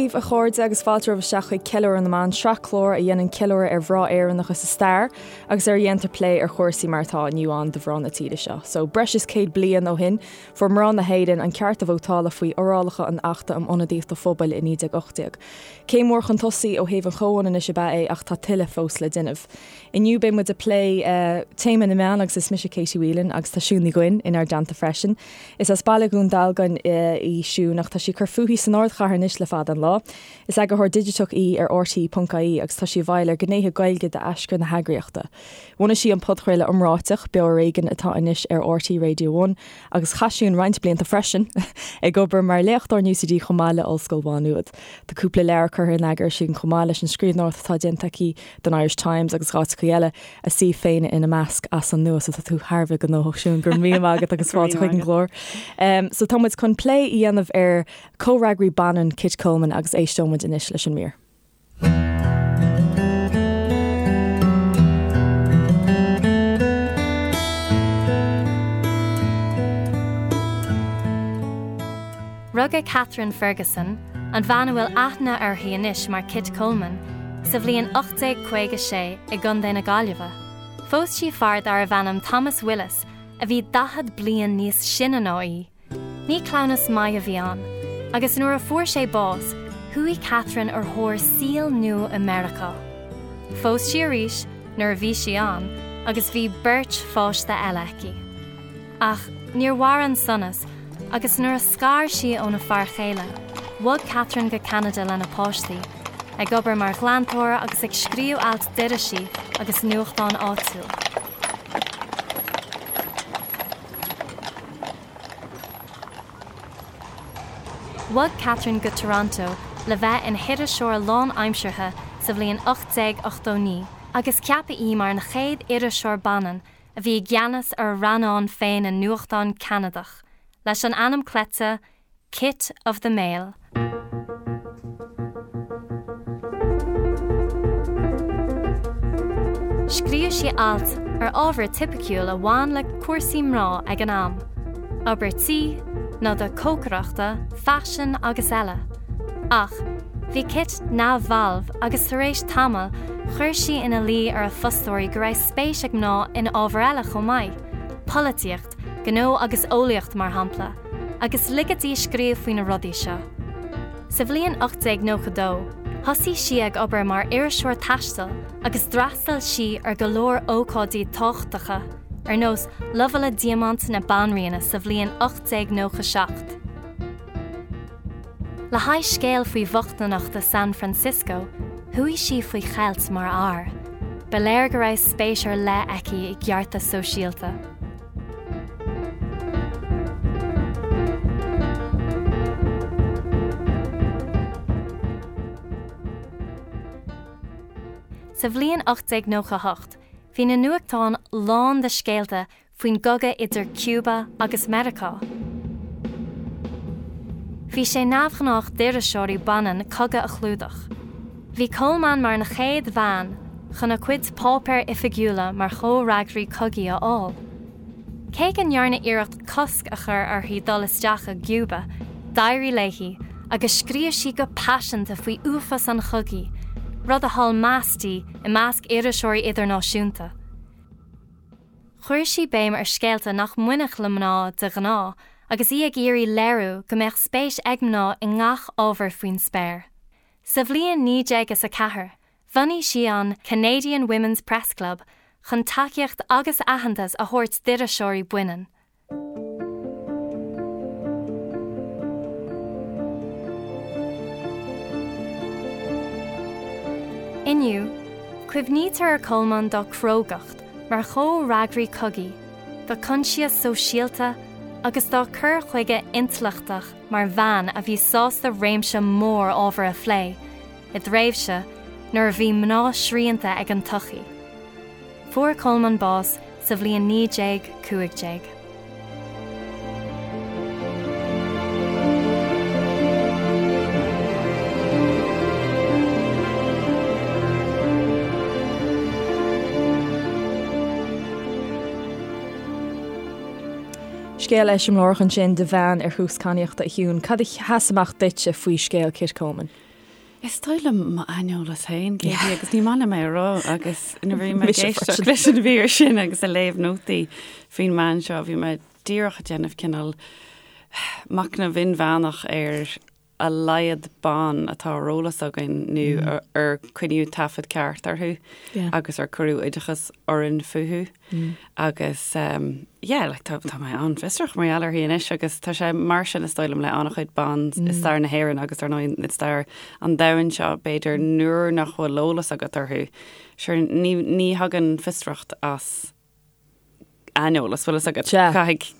daoibh, a chairde, agus fáilte romhaibh isteach chuig Ceiliúradh na mBan, sraith clár a dhéanann ceiliúradh ar mhná Éireannacha sa stair agus ar a dhéantar plé ar chúrsaí mar atá inniu ann do mhná na tíre seo. So, breis is 100 bliain ó shin, fuair mná na hÉireann an ceart a vótála faoi fhorálacha an Achta um Ionadaíocht an Phobail i 1918. Céim mhór chun tosaigh ó thaobh an chomhionannais ab ea é ach tá tuilleadh fós le déanamh. Inniu beidh muid ag plé téama na meán agus is mise Katie Whelan agus tá Siún Ní Dhuinn inár dteannta freisin. Is as baile Dhún Dealgan í Siún ach tá sí ag cur fúithi san ardchathair anois le fada an lá. Is eagarthóir digiteach í ar RTÉ.ie agus tá sí i bhfeighil ar ghnéithe Gaeilge d'aschur na heagraíochta. Bhunaigh sí an podchraoladh iomráiteach, Beo Ar Éigean atá anois ar RTÉ Radio One agus chaith Siún roinnt blianta freisin ag obair mar léachtóir in UCD chomh maith le Ollscoil Mhá Nuad. Tá cúpla leabhar curtha in eagar aici chomh maith leis an scríbhneoireacht atá déanta aici don Irish Times agus áiteacha eile, a suíomh féin ina measc, as an nua. So tá tú thar a bheith gnóthach Siún, go raibh míle maith agat agus fáilte chuig an gclár. So tá muid chun plé a dhéanamh ar comhfhreagraí baineann Kit Coleman agus éisteoidh muid anois leis an mír. Rugadh Catherine Ferguson, an bhean a bhfuil aithne uirthi anois mar Kit Coleman, sa bhliain 1856 i gContae na Gaillimhe. Phós sí fear darbh ainm Thomas Willis a bhí 40 bliain níos sine ná í. Ní cleamhnas maith a bhí ann, agus nuair a fuair sé bás, chuaigh Catherine ar thóir saoil nua i Meiriceá. Phós sí arís nuair a bhí sí ann agus bhí beirt pháiste eile aici. Ach níor mhair an sonas agus nuair a scar sí óna fear chéile, bhog Catherine go Ceanada lena páistí, ag obair mar ghlantóir agus ag scríobh ailt d'irisí agus nuachtáin áitiúil. Bhog Catherine go Toronto le bheith ina hiriseoir lánaimseartha sa bhliain 1889 agus ceapadh í mar an chéad iriseoir baineann a bhí i gceannas ar a rannán féin i nuachtán Ceanadach, leis an ainm cleite Kit of the Mail. Scríobh sí ailt ar ábhar tipiciúil a bhain le cúrsaí mná ag an am, obair tí, noda cócaireachta, faisean agus eile. Ach bhí Kit neamhbhalbh agus tar éis tamaill chuir sí ina luí ar a fostóirí go raibh spéis ag mná in ábhair eile chomh maith, polaitíocht, gnó agus eolaíocht mar shampla, agus ligeadh di scríobh faoi na rudaí seo. Sa bhliain 1892, thosaigh sí ag obair mar iriseoir taistil agus d'fhreastail sí ar go leor ócáidí tábhachtacha, ar nós Lobhála Diamant na Banríona sa bhliain 1897. Le haghaidh scéal faoi bhochtaineacht i San Francisco, chuaigh sí faoi cheilt mar fhear. Ba léir go raibh spéis ar leith aici i gceartas sóisialta. Sa bhliain 1898, bhí na nuachtáin lán de scéalta faoin gcogadh idir Cuba agus Meiriceá. Bhí sé neamhghnách d'iriseoirí baineann cogadh a chlúdach. Bhí Coleman mar an chéad bhean chun a cuid páipéir oifigiúla mar chomhfhreagraí cogaidh a fháil. Cé go ndearnadh iarracht cosc a chur uirthi dul isteach i gCuba, d'éirigh léi agus scríobh sí go paiseanta faoi uafás an chogaidh, rud a thuill meas di i measc iriseoirí idirnáisiúnta. Chuir sí béim ar scéalta nach mbainfeadh le mná de ghnáth agus í ag iarraidh léiriú go mbeadh spéis ag mná i ngach ábhar faoin spéir. Sa bhliain 1904, bhunaigh sí an Canadian Women's Press Club chun tacaíocht agus aitheantas a thabhairt d'iriseoirí baineann. Inniu, cuimhnítear ar Coleman dá crógacht mar chomhfhreagraí cogaidh, dá coinsias sóisialta agus dá cur chuige intleachtach mar bhean a bhí sásta réimse mór ábhar a phlé, i dtréimhse nuair a bhí mná srianta ag an tsochaí. Fuair Coleman bás sa bhliain 1915. Scéal eiseamláireach ansin de bhean ar thús cadhnaíochta a Shiún. Cad a sheas amach duitse faoi scéal Kit Coleman? Is dóigh liom m'aineolas féin, Katie, agus ní maith liom é a rá, agus nuair a bhí mé ag éisteacht leis an mhír sin agus ag léamh nótaí faoin mbean seo, bhí mé díreach ag déanamh cineál machnamh inmheánach ar a laghad ban atá ar eolas againn nó ar coinníodh taifead ceart orthu agus ar cuireadh oideachas orainn fúthu. Agus yeah, like tá tá mé an-fhiosrach mar gheall uirthi anois agus tá sé mar sin is dóigh liom le an-chuid ban i stair na hÉireann agus ar ndóigh i stair an domhain seo b'fhéidir nuair nach bhfuil eolas agat orthu. Sure ní ní thagann fiosracht as aineolas, bhfuil fhios agat. Sea. Caithfidh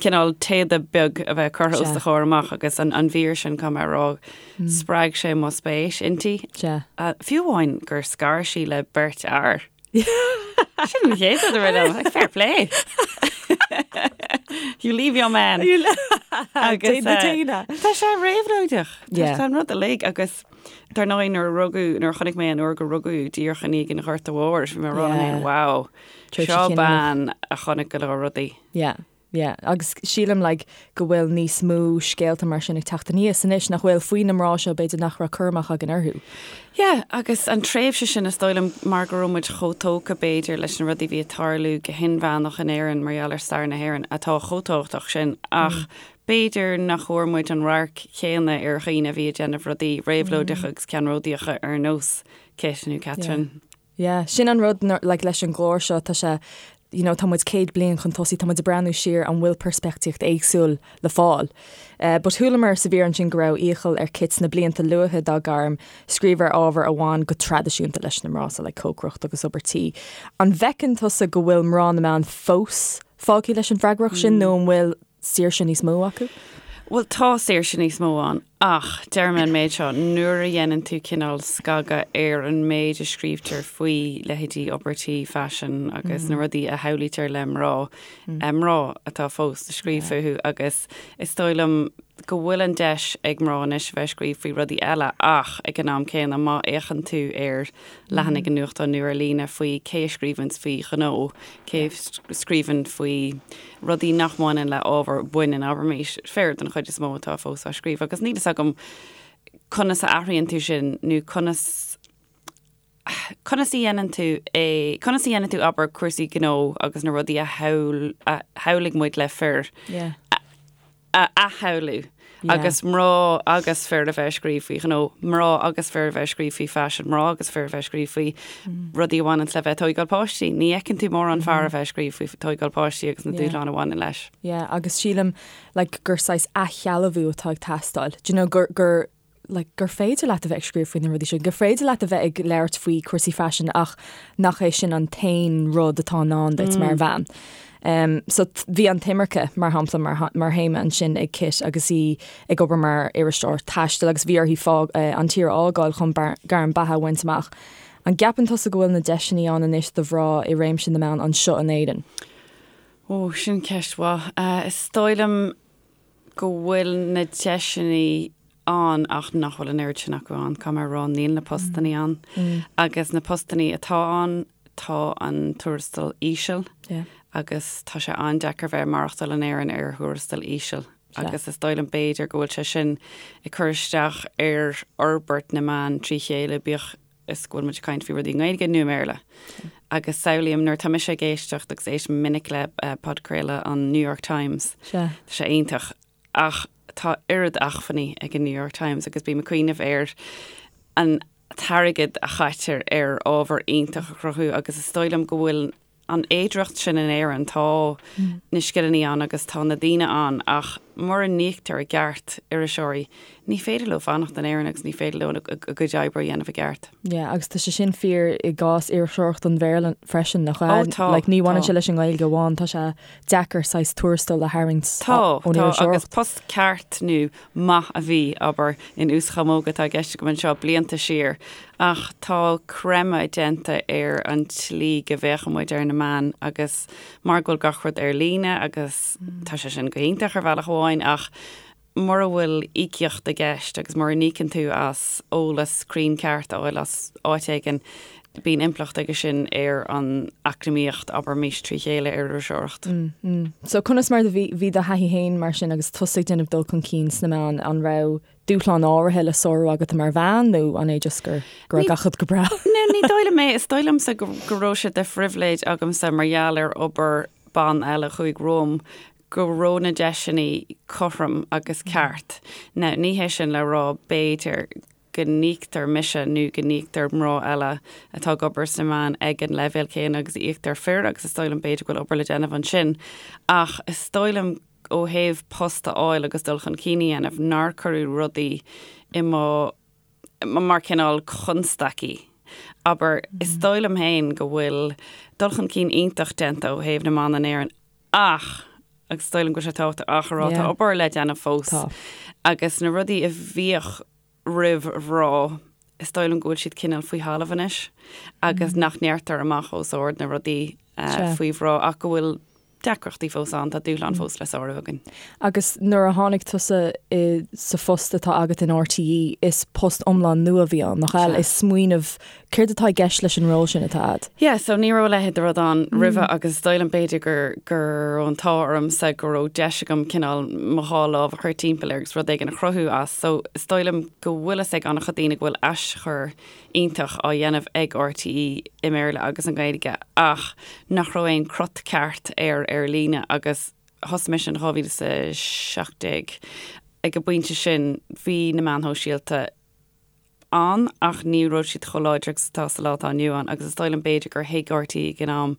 cineál téada beag a bheith curtha os do chomhair amach agus an an mhír sin caithfidh mé a rá spreag sé mo spéis inti. Sea. Fiú amháin gur scar sí le beirt fhear. Sin an chéad rud a rith liom, like, fair play. You leave your man. Agus, uh, Tá sé réabhlóideach. Yeah. Tá an rud uilig agus dar ndóigh nuair a rugadh, nuair a chonaic mé an uair gur rugadh díreach i ndiaidh an Ghorta Mhóir, bhí mé ag rá liom Yeah. féin, wow, Tréimhse seo chinniúnach. bean a chonaic go leor rudaí. Yeah. Yeah, agus sílim like go bhfuil níos mó scéalta mar sin ag teacht aníos anois nach bhfuil faoi na mná seo b'fhéidir nach raibh cur amach againn orthu. Yeah, agus an tréimhse sin is dóigh liom mar go raibh muid chomh tógtha b'fhéidir leis na rudaí a bhí ag tarlú go hinmheánach in Éirinn mar gheall ar stair na hÉireann atá chomh tábhachtach sin ach b'fhéidir nach bhfuair muid an radharc chéanna ar dhaoine a bhí ag déanamh rudaí réabhlóideacha agus ceannródaíocha ar nós Kit nó Catherine. Yeah, sin an rud like leis an gclár seo, tá sé, you know, tá muid 100 bliain chun tosaigh, tá muid ag breathnú siar, an bhfuil peirspictíocht éagsúil le fáil? Eh, but chualamar sa mhír ansin go raibh iachall ar Kit sna blianta luatha dá gairm scríobh ar ábhair a bhain go traidisiúnta leis na mná, so like cócaireacht agus obair tí. An bhfeiceann tusa go bhfuil mná na meán fós fágtha leis an bhfreagracht sin nó an bhfuil saoirse níos mó acu? Bhuel, tá saoirse níos mó ann, ach deir mé an méid seo, nuair a dhéanann tú cineál scagadh ar an méid a scríobhtar faoi leithéidí obair tí, faisean agus na rudaí a shamhlaítear le mná, mná atá fós ag scríobh fúthu agus is dóigh liom go bhfuil an deis ag mná anois a bheith ag scríobh faoi rudaí eile ach ag an am céanna má fhéachann tú ar leathanaigh an nuachtáin nó ar líne faoi cé a scríobhanns faoi ghnó, cé a scríobhann faoi rudaí nach mbaineann le ábhar baineann, abraimis, fir den chuid is mó atá fós á scríobh agus níl fhios agam conas a athraíonn tú sin nó conas conas a dhéanann tú é, conas a dhéanann tú, abair, cúrsaí gnó agus na rudaí a shamhail, a shamhlaigh muid le fir Yeah. a athshamhlú agus mná agus fir a bheith ag scríobh faoi ghnó, mná agus fir a bheith ag scríobh faoi faisean, mná agus fir a bheith ag scríobh faoi rudaí a bhaineann le bheith ag tóigeáil páistí. Ní fheiceann tú mórán fear a bheith ag scríobh faoi tóigeáil páistí agus na dúshláin a bhaineann leis. Yeah, agus sílim like gur saghas athshealbhú atá ag teastáil. Do you know, gur, gur, like, gur féidir leat a bheith ag scríobh faoi na rudaí sin, gur féidir leat a bheith ag labhairt faoi cúrsaí faisin ach nach é sin an t-aon rud atá i ndán duit mar bhean. Um, so bhí an t-imirce, mar shampla, mar, mar théama ansin ag Kit agus í ag obair mar iriseoir taistil agus bhí uirthi fág, uh, an tír a fhágáil chun bar, gairm beatha a bhaint amach. An gceapann tusa go bhfuil na deiseanna ann anois do mhná i réimse na meán anseo in Éirinn? Ó, sin ceist mhaith. Uh, is dóigh liom go bhfuil na deiseanna ann ach nach bhfuil an oiread sin acu ann. Caithfidh mé a rá, níl na postannaí ann. Agus na postannaí atá ann, tá an tuarastal íseal agus tá sé an-deacair bheith ag maireachtáil in Éirinn ar thuarastal íseal. Agus is dóigh liom b'fhéidir go bhfuil sé sin ag cur isteach ar fhorbairt na meán trí chéile, bíodh is go bhfuil muid ag caint faoi rudaí i nGaeilge nó i mBéarla. Agus samhlaím nuair atá mise ag éisteacht agus éistim minic le podchraoladh an New York Times, Sea. tá sé iontach ach tá oiread acmhainní ag an New York Times agus bím ag cuimhneamh ar an t-airgead a chaitear ar ábhar iontach a chruthú agus is dóigh liom go bhfuil an fhéidearthacht sin in Éirinn, tá na scileanna ann agus tá na daoine ann ach mura n-íoctar i gceart iriseoirí, ní féidir leo fanacht in Éirinn agus ní féidir leo a gcuid oibre a dhéanamh i gceart. Yeah, agus tá sé sin fíor i gcás iriseoireacht an Bhéarla freisin, nach ea? Ó tá, Like, ní bhaineann tá. sé leis an nGaeilge amháin, tá sé deacair saghas tuarastal a tharraingt Tá, ón tá, agus iriseoireacht. post ceart nó maith a bhí, abair, in uaschamóga atá i gceist agam anseo, blianta siar, ach tá creimeadh déanta ar an tslí go bhféachann muid ar na meáin agus mar go bhfuil gach rud ar líne agus tá sé sin go hiontach ar bhealach amháin ach mura bhfuil íocaíocht i gceist agus mura n-íocann tú as eolas cruinn ceart a fháil as áit éigin. Bíonn impleacht aige sin ar an eacnamaíocht, abraimis, trí chéile ar iriseoireacht. So conas mar a bhí bhí do thaithí féin mar sin agus tusa ag déanamh dul chun cinn sna meáin, an raibh dúshláin áirithe le sárú agat mar bhean nó an é just gur go raibh gach rud go breá? No, ní dóigh liom é. Is dóigh liomsa go go raibh sé de phribhléid agamsa mar gheall ar obair ban eile a chuaigh romham go raibh na deiseanna cothrom agus ceart. Now, ní hé sin le rá b'fhéidir go n-íoctar mise nó go n-íoctar mná eile atá ag obair sna meáin ag an leibhéal céanna agus a íoctar fir agus is dóigh liom b'fhéidir go bhfuil obair le déanamh ansin ach is dóigh liom ó thaobh post a fháil agus dul chun cinn a dhéanamh nár cuireadh rudaí i mo mar cineál constaicí. Abair, is dóigh liom féin go bhfuil dul chun cinn iontach déanta ó thaobh na mban in Éirinn ach, agus is dóigh liom go bhfuil sé tábhachtach ach a rá, tá obair le déanamh fós agus na rudaí a bhíodh roimh mhná, is dóigh liom go bhfuil siad cineál faoi thalamh anois agus nach ndeirtear amach os ard na rudaí faoi mhná ach go bhfuil deacrachtaí fós ann, tá dúshlán fós le sárú againn. Agus nuair a tháinig tusa i sa phost atá agat in RTÉ, is post iomlán nua a bhí ann, nach ea? Is smaoineamh, céard atá i gceist leis an ról sin atá a'd? Yeah, so ní raibh a leithéid de rud ann roimhe agus is dóigh liom b'fhéidir gur go raibh an t-ádh ormsa go raibh deis agam cineál mo dhá lámh a chur timpeall air agus rud éigin a chruthú as. So is dóigh liom go bhfuil fhios ag an-chuid daoine go bhfuil aschur iontach á dhéanamh ag RTÉ i mBéarla agus i nGaeilge ach nach raibh aon crot ceart air ar líne agus thosaigh mise in 2017 ag an bpointe sin bhí na meáin shóisialta ann ach ní raibh siad chomh láidir agus atá sa lá atá inniu ann agus is dóigh liom b'fhéidir gur thuig RTÉ ag an am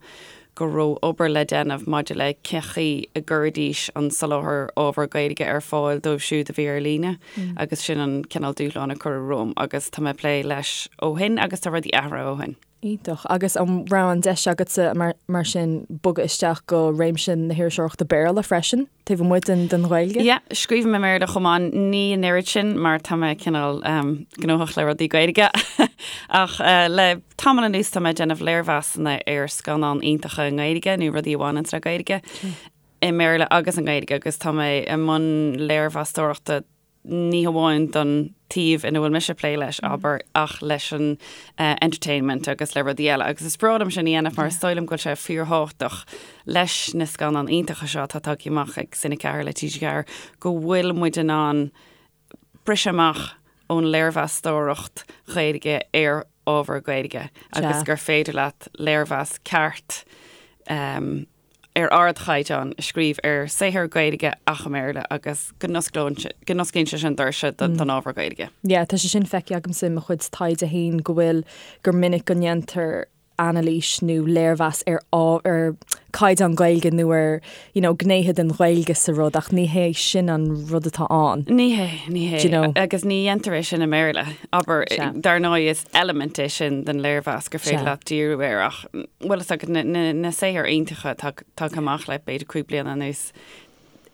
go raibh obair le déanamh maidir le cén chaoi a gcuirfidís an soláthar ábhar Gaeilge ar fáil dóibh siúd a bhí ar líne agus sin an cineál dúshlán a cuireadh romham agus tá mé ag plé leis ó shin agus tá rudaí athraithe ó shin. Iontach. Agus an raibh an deis agatsa mar sin bogadh isteach go réimse na hiriseoireachta Béarla freisin, taobh amuigh den den Ghaeilge? Yeah, scríobhaim i mBéarla chomh maith, ní an oiread sin mar tá mé cineál gnóthach le rudaí Gaeilge. Ach le tamall anuas tá mé ag déanamh léirmheasanna ar scannáin iontacha i nGaeilge nó rudaí a bhaineanns le Gaeilge i mBéarla agus i nGaeilge agus tá mé i mbun léirmheastóireachta ní hamháin don taobh ina bhfuil mise ag plé leis, abair, ach leis an entertainment agus le rudaí eile. Agus is breá liom sin a dhéanamh mar is dóigh liom go bhfuil sé fíorthábhachtach leis na scannáin iontacha seo atá tagtha amach ag Cine 4 le TG4 go bhfuil muid in ann briseadh amach ón léirmheastóireacht Ghaeilge ar ábhar Gaeilge agus gur féidir leat léirmheas ceart ar ardchaighdeán a scríobh ar saothar Gaeilge ach i mBéarla agus go n-osclaíonn sé sin doirse don ábhar Gaeilge. Yeah, tá sé sin feicthe agamsa i mo chuid taighde féin go bhfuil, gur minic go ndéantar anailís nó léirmheas ar ar caighdeán Gaeilge nó ar you know gnéithe den Ghaeilge sa rud ach ní hé sin an rud atá ann. Ní hé, ní hé. Do you know? Agus ní dhéantar é sin i mBéarla. Abair, dar ndóigh is eilimint é sin den léirmheas gur féidir leat díriú air ach bhfuil fhios agat na saothair iontacha atá tagtha amach le b'fhéidir 5 bliana anuas,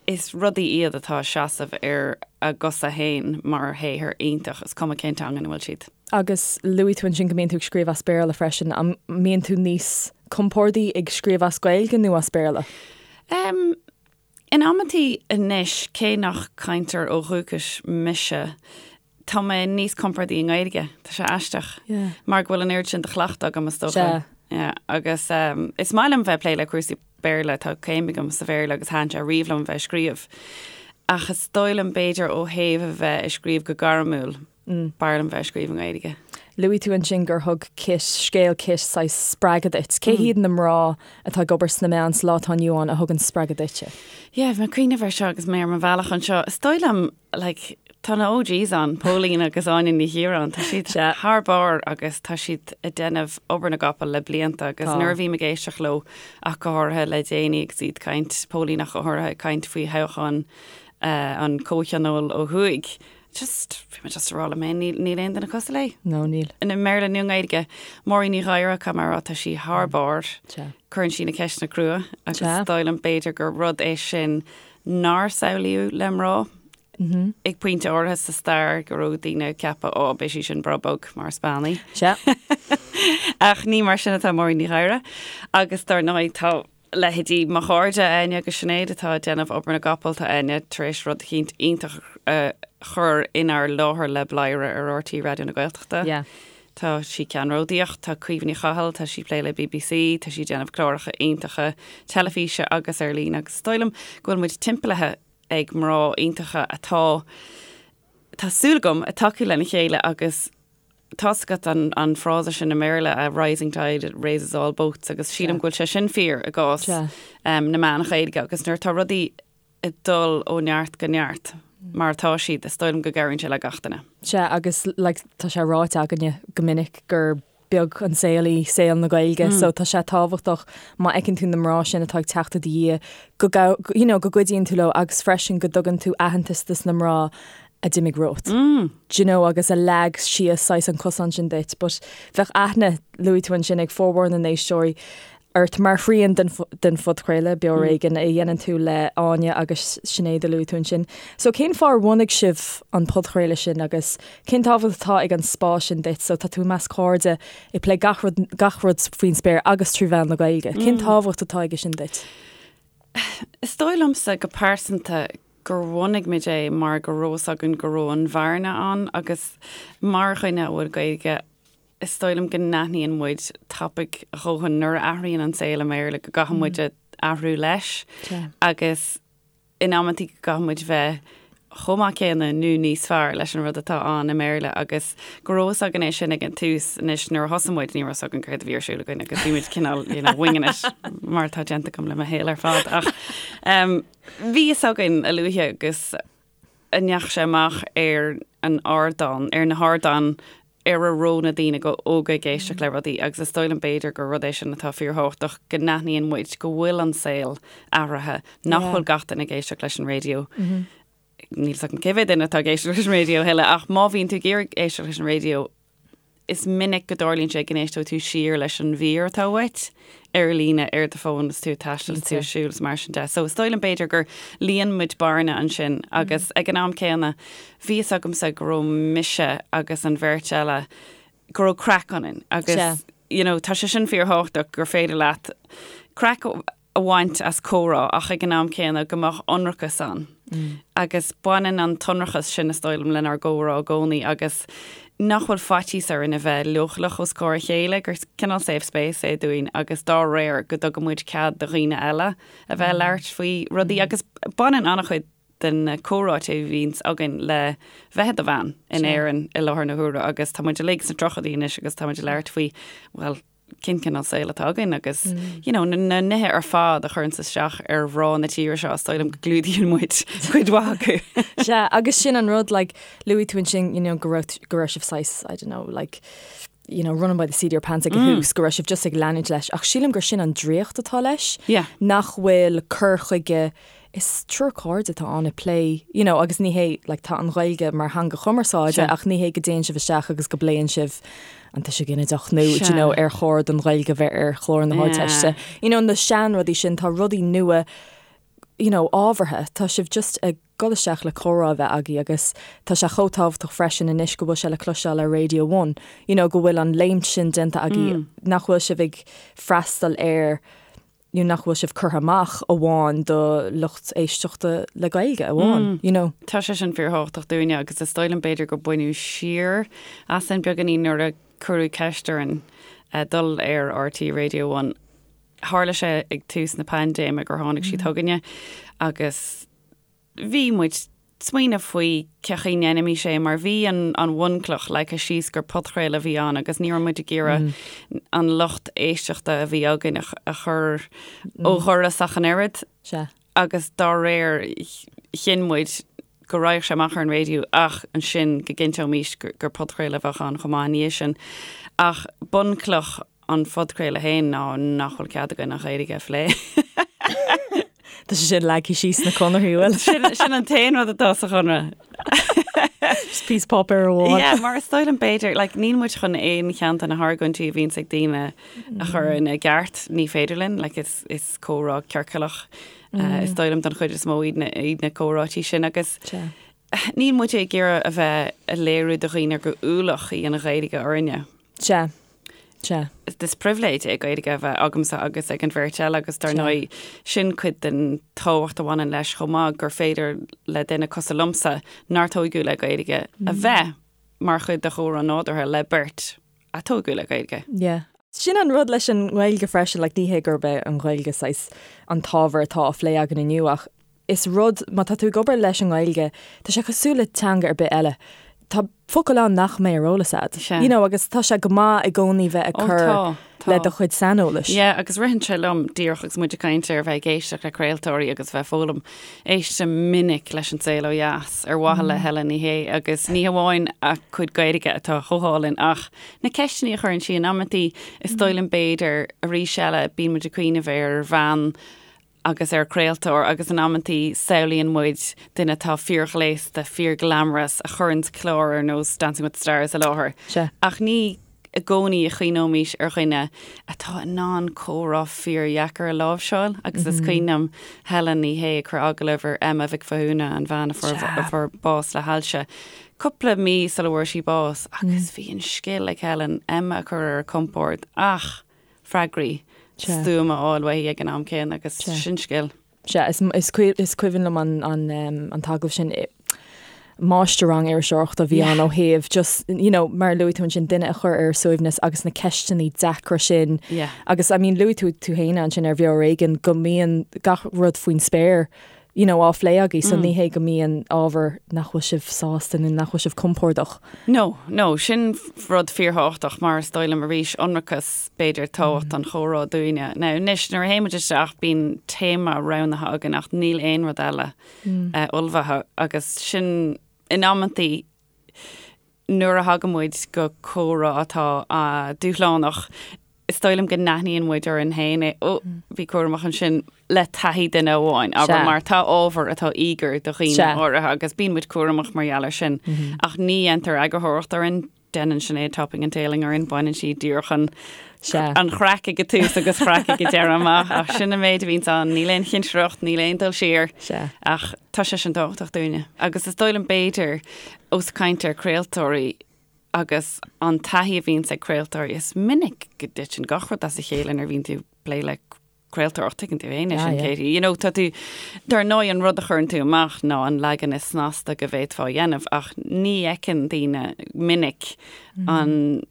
is rudaí iad atá ag seasamh ar a gcosa féin mar shaothar iontach, is cuma cén teanga ina bhfuil siad. Agus luaigh tú ansin go mbíonn tú ag scríobh as Béarla freisin, an mbíonn tú níos compórdaí ag scríobh as Gaeilge nó as Béarla? Em, in amantaí anois, cé nach cainteoir ó dhúchas mise, tá mé níos compordaí i nGaeilge. Tá sé aisteach. Yeah. Mar go bhfuil an oiread sin de chleachtadh agam is dócha. Sea. Yeah. Agus um, is maith liom bheith ag plé le cúrsaí Béarla, tá céim agam sa Bhéarla agus thaitin sé riamh liom bheith ag scríobh. Ach is dóigh liom b'fhéidir ó thaobh a bheith ag scríobh go gairmiúil, b'fhearr liom bheith ag scríobh i nGaeilge. Luaigh tú ansin gur thug Kit, scéal Kit, saghas spreagadh duit. Cé hiad na mná atá ag obair sna meáin sa lá atá inniu ann a thugann spreagadh duitse? Yeah, bhí mé ag cuimhneamh air seo agus mé ar mo bhealach anseo. Is dóigh liom like, tá na OGs ann, Póilín agus Áine Ní Chiaráin, tá siad thar barr agus tá siad ag déanamh obair na gcapall le blianta agus nuair a bhím ag éisteacht leo ach go háirithe le déanaí agus iad ag caint, Póilín ach go háirithe ag caint faoi thoghchán uh, an Comhthionóil ó thuaidh. Just, bhí mé just ag rá liom féin, níl, níl aon duine cosúil léi. No, níl. I mBéarla nó i nGaeilge. Máirín Ní Ghadhra, caithfidh mé a rá, tá sí thar barr. Cuireann sí na ceisteanna crua agus is dóigh liom b'fhéidir gur rud é sin nár samhlaíodh le mná ag pointe áirithe sa stair go raibh daoine ag ceapadh ó beidh sí sin breá bog mar is bean í. Sea. Ach ní mar sin atá Máirín Ní Ghadhra agus dar ndóigh tá leithéidí mo chairde Áine agus Sinéad atá ag déanamh obair na gcapall, tá Áine tar éis rud eicínt iontach a chur inár láthair le Bladhaire ar RTÉ Raidió na Gaeltachta. Yeah. Tá sí ceannródaíoch, tá Caoimhe Ní Chathail, tá sí ag plé le BBC, tá sí ag déanamh cláracha iontacha teilifíse agus ar líne agus is dóigh liom go bhfuil muid timpeallaithe ag mná iontacha atá, tá súil agam, ag tacú lena chéile agus tá's agat an an frása sin i mBéarla, a rising tide raises all boats agus sílim go bhfuil sé sin fíor i gcás na meán Ghaeilge agus nuair atá rudaí ag dul ó neart go neart mar atá siad, is dóigh liom go gcabhraíonn sé le gach duine. Sea, agus like tá sé ráite againne go minic gur beag an saol í saol na Gaeilge so tá sé tábhachtach má fheiceann tú na mná sin atá ag teacht i do dhiaidh go you know go gcuidíonn tú leo agus freisin go dtugann tú aitheantas dos na mná a d'imigh romhat. Do you know agus a leag síos saghas an cosán sin duit but bheadh aithne, luaigh tú ansin, ag formhór na n-éisteoirí ort mar thrian den den phodchraoladh, Beo Ar Éigean, a dhéanann tú le Áine agus Sinéad a luaigh tú ansin. So cén fáth ar bhunaigh sibh an podchraoladh sin agus cén tábhacht atá ag an spás sin duit? So tá tú i measc cairde ag plé gach rud gach rud faoin spéir agus trí mheán na Gaeilge. Cén tábhacht atá aige sin duit? Is dóigh liomsa go pearsanta gur bhunaigh muid é mar go raibh fhios againn go raibh an bhearna ann agus mar dhuine a bhfuil Gaeilge is dóigh liom go n-aithníonn muid tapaidh a dhóthain nuair a athraíonn an saol i mBéarla go gcaithfidh muid athrú leis agus in amantaí go gcaithfidh muid bheith chomh maith céanna nó níos fearr leis an rud atá ann i mBéarla agus go raibh fhios againn é sin ag an tús. Anois nuair a thosaigh muid ní raibh fhios againn céard a bhí ar siúl againn agus bhí muid cineál you know winging it mar atá déanta agam le mo shaol ar fad ach um, bhí fhios againn a luaithe agus a ndeachaigh sé amach ar an ardán, ar na hardáin ar a raibh na daoine óga ag éisteacht le rudaí agus is dóigh liom b'fhéidir gur rud é sin atá fíorthábhachtach, go n-aithníonn muid go bhfuil an saol athraithe, nach bhfuil gach duine ag éisteacht leis an raidió. Níl 's agam cé mhéad duine atá ag éisteacht leis an raidió a thuilleadh ach má bhíonn tú ag iarraidh éisteacht leis an raidió, Is minic go dtarlaíonn sé go n-éisteoidh tú siar leis an mhír atá uait ar líne ar do fón is tú ag taisteal is tú ag siúl is mar sin de. So is dóigh liom b'fhéidir gur líon muid bearna ansin agus ag an am céanna bhí fhios agamsa go raibh mise agus an bheirt eile go raibh craic ionainn agus you know tá sé sin fíorthábhachtach gur féidir leat craic a bhaint as comhrá ach ag an am céanna go mbeadh ionracas ann. Agus baineann an t-ionracas sin, is dóigh liom, lenár gcomhrá i gcónaí agus nach bhfuil faitíos orainn a bheith leochaileach os comhair a chéile, gur cineál safe space é dúinn agus dá réir go dtugann muid cead do dhaoine eile a bheith ag labhairt faoi rudaí agus baineann an-chuid de na comhráite a bhíonns againn le bheith i do bhean in Éirinn i láthair na huaire agus tá muid uilig sna tríochaidí anois agus tá muid ag labhairt faoi, bhuel, cén cineál saoil atá againn agus you know, na, na nithe ar fad a chuireanns isteach ar mhná na tíre seo, is dóigh liom go gclúdaíonn muid cuid mhaith acu. Sea, agus sin an rud, like, luaigh tú ansin, you know, go raibh, go raibh sibh saghas, I don't know, like, you know, running by the seat of your pants ag an mm. tús, go raibh sibh just ag leanúint leis, ach sílim gur sin an draíocht atá leis, yeah. nach bhfuil cur chuige Is triúr cairde atá ann ag plé, you know, agus ní hé, like, tá an Ghaeilge mar theanga chumarsáide ach ní hé go dtéann sibh isteach agus go bpléann sibh an tuiseal ginideach nó, do you know, ar chóir don Ghaeilge bheith ar chlár na hArdteiste. You know, na seanrudaí sin, tá rudaí nua, you know, ábhartha. Tá sibh just ag dul isteach le comhrá a bheith agaibh agus tá sé chomh tábhachtach freisin anois go bhfuil sé le cloisteáil ar Radio One, you know, go bhfuil an léimt sin déanta agaibh, nach bhfuil sibh ag freastal ar you know, nach bhfuil sibh curtha amach amháin do lucht éisteachta le Gaeilge amháin, you know. Tá sé sin fíorthábhachtach dúinne agus is dóigh liom b'fhéidir gur baineadh siar asainn beagáinín nuair a cuireadh ceist orainn dul ar RTÉ Radio One. Tharla sé ag tús na paindéime gur tháinig siad chugainne agus bhí muid smaoineamh faoi cén chaoi a ndéanfaimis é mar bhí an an bhunchloch leagtha síos gur podchraoladh a bhí ann agus ní raibh muid ag iarraidh an lucht éisteachta a bhí againn a chur ó dhoras ach an oiread. Sea. Agus dá réir chinn muid go raghadh sé amach ar an raidió ach ansin go gcinnteoimis gur podchraoladh a bheadh ann chomh maith ina dhiaidh sin. Ach bunchloch an phodchraoladh féin ná nach bhfuil cead againn an Ghaeilge a phlé. Tá sé sin leagtha síos sna conarthaí, bhfuil? Sin, sin an t-aon rud atá sa chonradh. Just píosa páipéir amháin. Yeah, mar is dóigh liom b'fhéidir, like, níl muid chun aon cheann de na hargóintí a bhíonns ag daoine a chur ina gceart, ní féidir linn, like, is, is comhrá ciorcalach, uh, is dóigh liom don chuid is mó iad na, iad na comhráití sin agus Sea. níl muid ag iarraidh a bheith ag léiriú do dhaoine gur ualach í an Ghaeilge orainne. Sea. Sea. Is pribhléid é Gaeilge a bheith agamsa agus ag an bheirt eile agus dar ndóigh sin cuid den tábhacht a bhaineann leis chomh maith gur féidir le duine cosúil liomsa nár tóigeadh le Gaeilge a bheith mar chuid de chomhrá nádúrtha le beirt. a tógadh le Gaeilge. Yeah. Sin an rud leis an nGaeilge freisin, like ní hé gurb é an Ghaeilge saghas an t-ábhar atá á phlé againn inniu ach is rud, má tá tú ag obair leis an nGaeilge, tá sé cosúil le teanga ar bith eile. Tá focail ann nach mbeidh ar eolas agat. Sea. You know, agus tá sé go maith i gcónaí bheith ag Ó, cur tá, tá. le do chuid saineolais. Yeah, agus ritheann sé liom díreach agus muid ag caint ar bheith ag éisteacht le craoltóirí agus bheith ag foghlaim, éistim minic leis An Saol Ó Dheas ar mhaithe le Helen Ní Shé agus ní hamháin a cuid Gaeilge atá chomh hálainn ach na ceisteanna a chuireann sí in amantaí, is dóigh liom b'fhéidir arís eile bíonn muid ag cuimhneamh ar bhean agus ar chraoltóir agus in amantaí samhlaíonn muid duine atá fíorghléasta, fíorghlamorous a chuireann clár ar nós Dancing with the Stars i láthair. Sea. Ach ní i gcónaí a chuimhneoimís ar dhuine atá in ann comhrá fíordheacair a láimhseáil agus is cuimhin liom Helen Ní Shé ag cur agallamh ar Emma Mhic Mhathúna, an bhean a fuair bás le hailse, cúpla mí sula bhfuair sí bás agus bhí an scil ag Helen Emma a chur ar a compord ach freagraí stuama a fháil uaithi ag an am céanna agus sin scil. Sea, is cuimhin liom an t-agallamh sin. Máistir-rang iriseoireachta a bhí ann ó thaobh just, you know, mar a luaigh tú ansin, duine a chur ar a suaimhneas agus na ceisteanna deacra sin. Agus, I mean, luaigh tú tú féin ansin ar Bheo Ar Éigean go mbíonn gach rud faoin spéir you know, á phlé agaibh, so ní hé go mbíonn ábhar nach bhfuil sibh sásta nó nach bhfuil sibh compordach. No, no, sin rud fíorthábhachtach mar is dóigh liom arís ionracas, b'fhéidir, tábhacht an chomhrá dúinne. Now, anois, nuair a théann muid isteach, bíonn téama roghnaithe againn ach níl aon rud eile ullmhaithe agus sin in amantaí, nuair a thagann muid go comhrá atá dúshlánach, is dóigh liom go n-aithníonn muid orainn féin é, ó, bí cúramach ansin le taithí duine amháin, abair, mar tá ábhar atá íogair do dhaoine áirithe agus bíonn muid cúramach mar gheall air sin. Ach ní dhéantar eagarthóireacht orainn, déanann Sinéad topping and tailing orainn, baineann sí díreach an an chraic ag an tús agus craic ag an deireadh amach, ach sin an méid a bhíonns ann, níl aon chinsireacht, níl aon dul siar, ach tá sé sin tábhachtach dúinne. Agus is dóigh liom b'fhéidir, Ós ag caint ar craoltóirí agus an taithí a bhíonns ag craoltóirí, is minic go dtiteann gach rud as a chéile nuair a bhíonn tú ag plé le craoltóireacht, tuigeann tú féin é sin, Katie. You know, tá tú, dar ndóigh an rud a chuireann tú amach ná an leagan is snasta go bhféadfá a dhéanamh ach ní fheiceann daoine minic an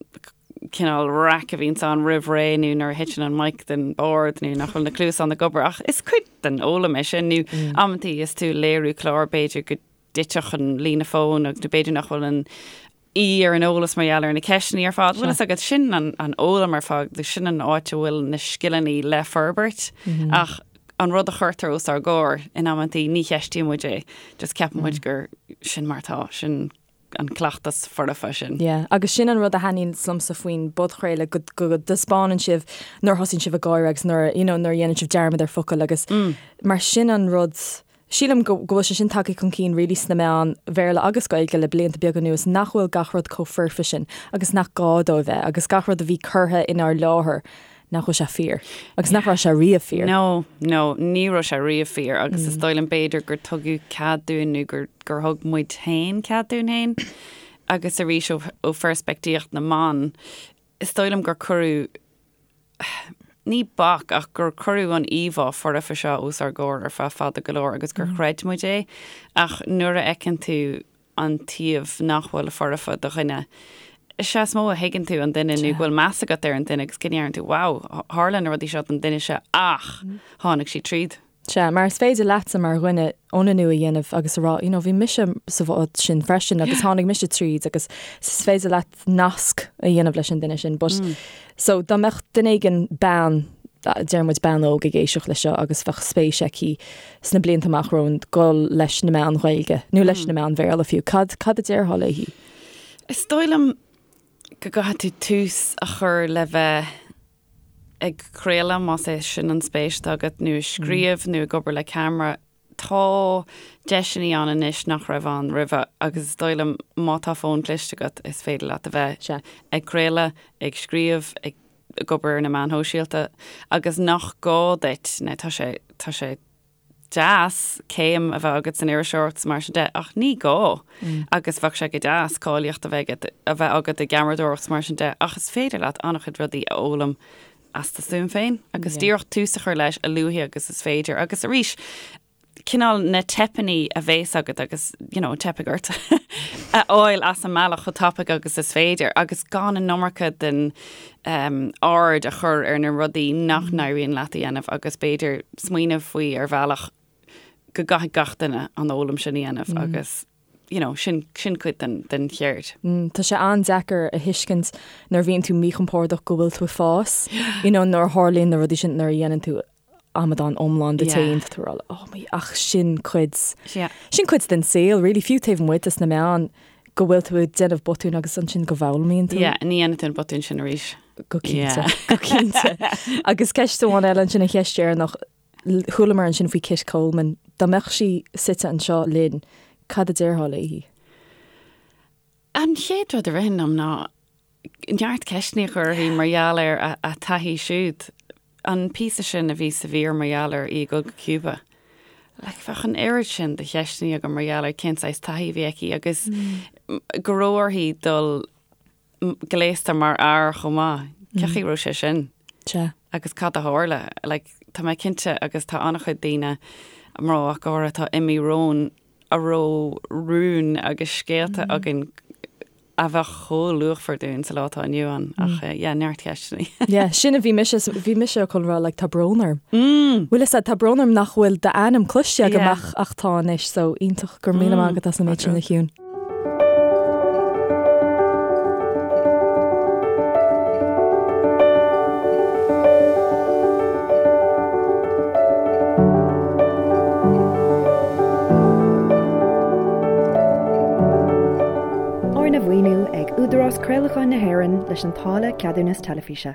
cineál raic a bhíonns ann roimh ré nó nuair a thiteann an mic den bord nó nach bhfuil na cluasáin ag obair ach is cuid den fhoghlaim é sin nó amantaí is tú ag léiriú clár b'fhéidir go dtitfeadh an líne fóin agus nó b'fhéidir nach bhfuil an aoi ar an eolas mar gheall ar na ceisteanna ar fad. Bhfuil fhios agat, sin an an fhoghlaim ar fad, sin an áit a bhfuil na scileanna le forbairt ach an rud a chuirtear os ár gcomhair in amantaí ní cheistíonn muid é, just ceapann muid gur sin mar atá, sin an cleachtas foirfe sin. Yeah, agus sin an rud a thaitníonn liomsa faoin bpodchraoladh, go go dtaispeánann sibh nuair a thosaíonn sibh ag gáire agus nuair you know nuair a dhéanann sibh dearmad ar focail agus mar sin an rud Sílim go bhfuil sé sin tagtha chun cinn really sna meáin Bhéarla agus Gaeilge le blianta beaga anuas nach bhfuil gach rud chomh foirfe sin agus nach gá dó a bheith agus gach rud a bhí curtha inár láthair nach bhfuil sé fíor agus nach raibh sé riamh fíor. No, no, ní raibh sé riamh fíor agus is dóigh liom b'fhéidir gur tugadh cead dúinn nó gur gur thug muid féin cead dúinn féin agus arís ó ó pheirspictíocht na mban is dóigh liom gur cuireadh ní bac ach gur cuireadh an íomhá foirfe seo os ár gcomhair ar feadh fada go leor agus gur chreid muid é ach nuair a fheiceann tú an taobh nach bhfuil foirfe de dhuine, is ea is mó a thuigeann tú an duine nó go bhfuil meas agat ar an duine agus go ndeireann tú wow, tharla na rudaí seo don duine seo ach tháinig sí tríd. Sea, mar is féidir leatsa mar dhuine ionannú a dhéanamh agus a rá, you know, bhí mise sa bhád sin freisin agus tháinig mise tríd agus is féidir leat nasc a dhéanamh leis an duine sin. But, so, dá mbeadh duine éigin, bean, deir muid bean óg ag éisteacht leis seo agus bheadh spéis aici sna blianta amach romhainn dul leis na meáin Ghaeilge nó leis na meáin Bhéarla fiú, cad, cad a déarfá léi? Is dóigh liom go gcaithfidh tú tús a chur le bheith ag craoladh, más é sin an spéis atá agat, nó ag scríobh nó ag obair le ceamara, tá deiseanna ann anois nach raibh ann roimhe agus is dóigh liom má tá fón cliste agat is féidir leat a bheith ag craoladh, ag scríobh, ag obair ar na meáin shóisialta agus nach gá duit, now tá sé, tá sé deas céim a bheith agat san iriseoireacht is mar sin de, ach ní gá. Agus bheadh sé go deas cáilíocht a bheith agat, a bheith agat i gceamaradóireacht is mar sin de, ach is féidir leat an-chuid rudaí a fhoghlaim as do stuaim féin agus díreach tús a chur leis a luaithe agus is féidir. Agus arís, Cineál na teipeanna a bhéas agat agus, you know, teipfidh ort a fháil as an mbealach chomh tapaidh agus is féidir agus gan an iomarca den um, aird a chur ar na rudaí nach n-éiríonn leat a dhéanamh agus b'fhéidir smaoineamh faoi ar bhealach go gcaithfidh gach duine an fhoghlaim sin a dhéanamh agus you know, sin, sin cuid den, den cheird. Mm, tá sé an-deacair a thuiscint nuair a bhíonn tú míchompordach go bhfuil tú ag fás, you know, nuair a tharlaíonn na rudaí sin nuair a dhéanann tú amadán iomlán díot féin, tá tú ag rá, oh my, ach sin cuid, Yeah. sin cuid den saol, really, fiú taobh amuigh des na meáin, go bhfuil tú ag déanamh botúin agus ansin go bhfoghlaimíonn tú. Yeah, ní dhéanann tú an botún sin arís. Go cinnte, Yeah. go cinnte. Agus ceist amháin eile ansin an cheist dheireanach, Chualamar ansin faoi Kit Coleman. Dá mbeadh sí suite anseo linn, cad a déarfá léi? An chéad rud a ritheann liom ná neart ceisteanna a chur uirthi mar gheall ar a taithí siúd. An píosa sin a bhí sa mhír mar gheall ar í ag dul go Cuba. Like, bheadh an oiread sin de cheisteanna agam mar gheall ar cén saghas taithí a bhí aici agus go raibh uirthi dul gléasta mar fhear chomh maith. Cén chaoi a raibh sé sin? Sea. Agus cad a tharla? Like, tá mé cinnte agus tá an-chuid daoine, mná ach go háirithe, atá imithe romhainn a raibh rúin agus scéalta againn a bheadh chomh luachmhar dúinn sa lá atá inniu ann. Ach yeah, neart ceisteanna. Yeah, sin a bhí mise, bhí mise chun rá, like, tá brón orm. Bhfuil fhios a'd, tá brón orm nach bhfuil d'ainm cloiste agam ach, ach tá anois, so iontach, go raibh míle maith agat as an méid sin a Shiún. Arna mhaoiniú ag Údarás Craolacháin na hÉireann leis an táille Ceadúnas Teilifíse.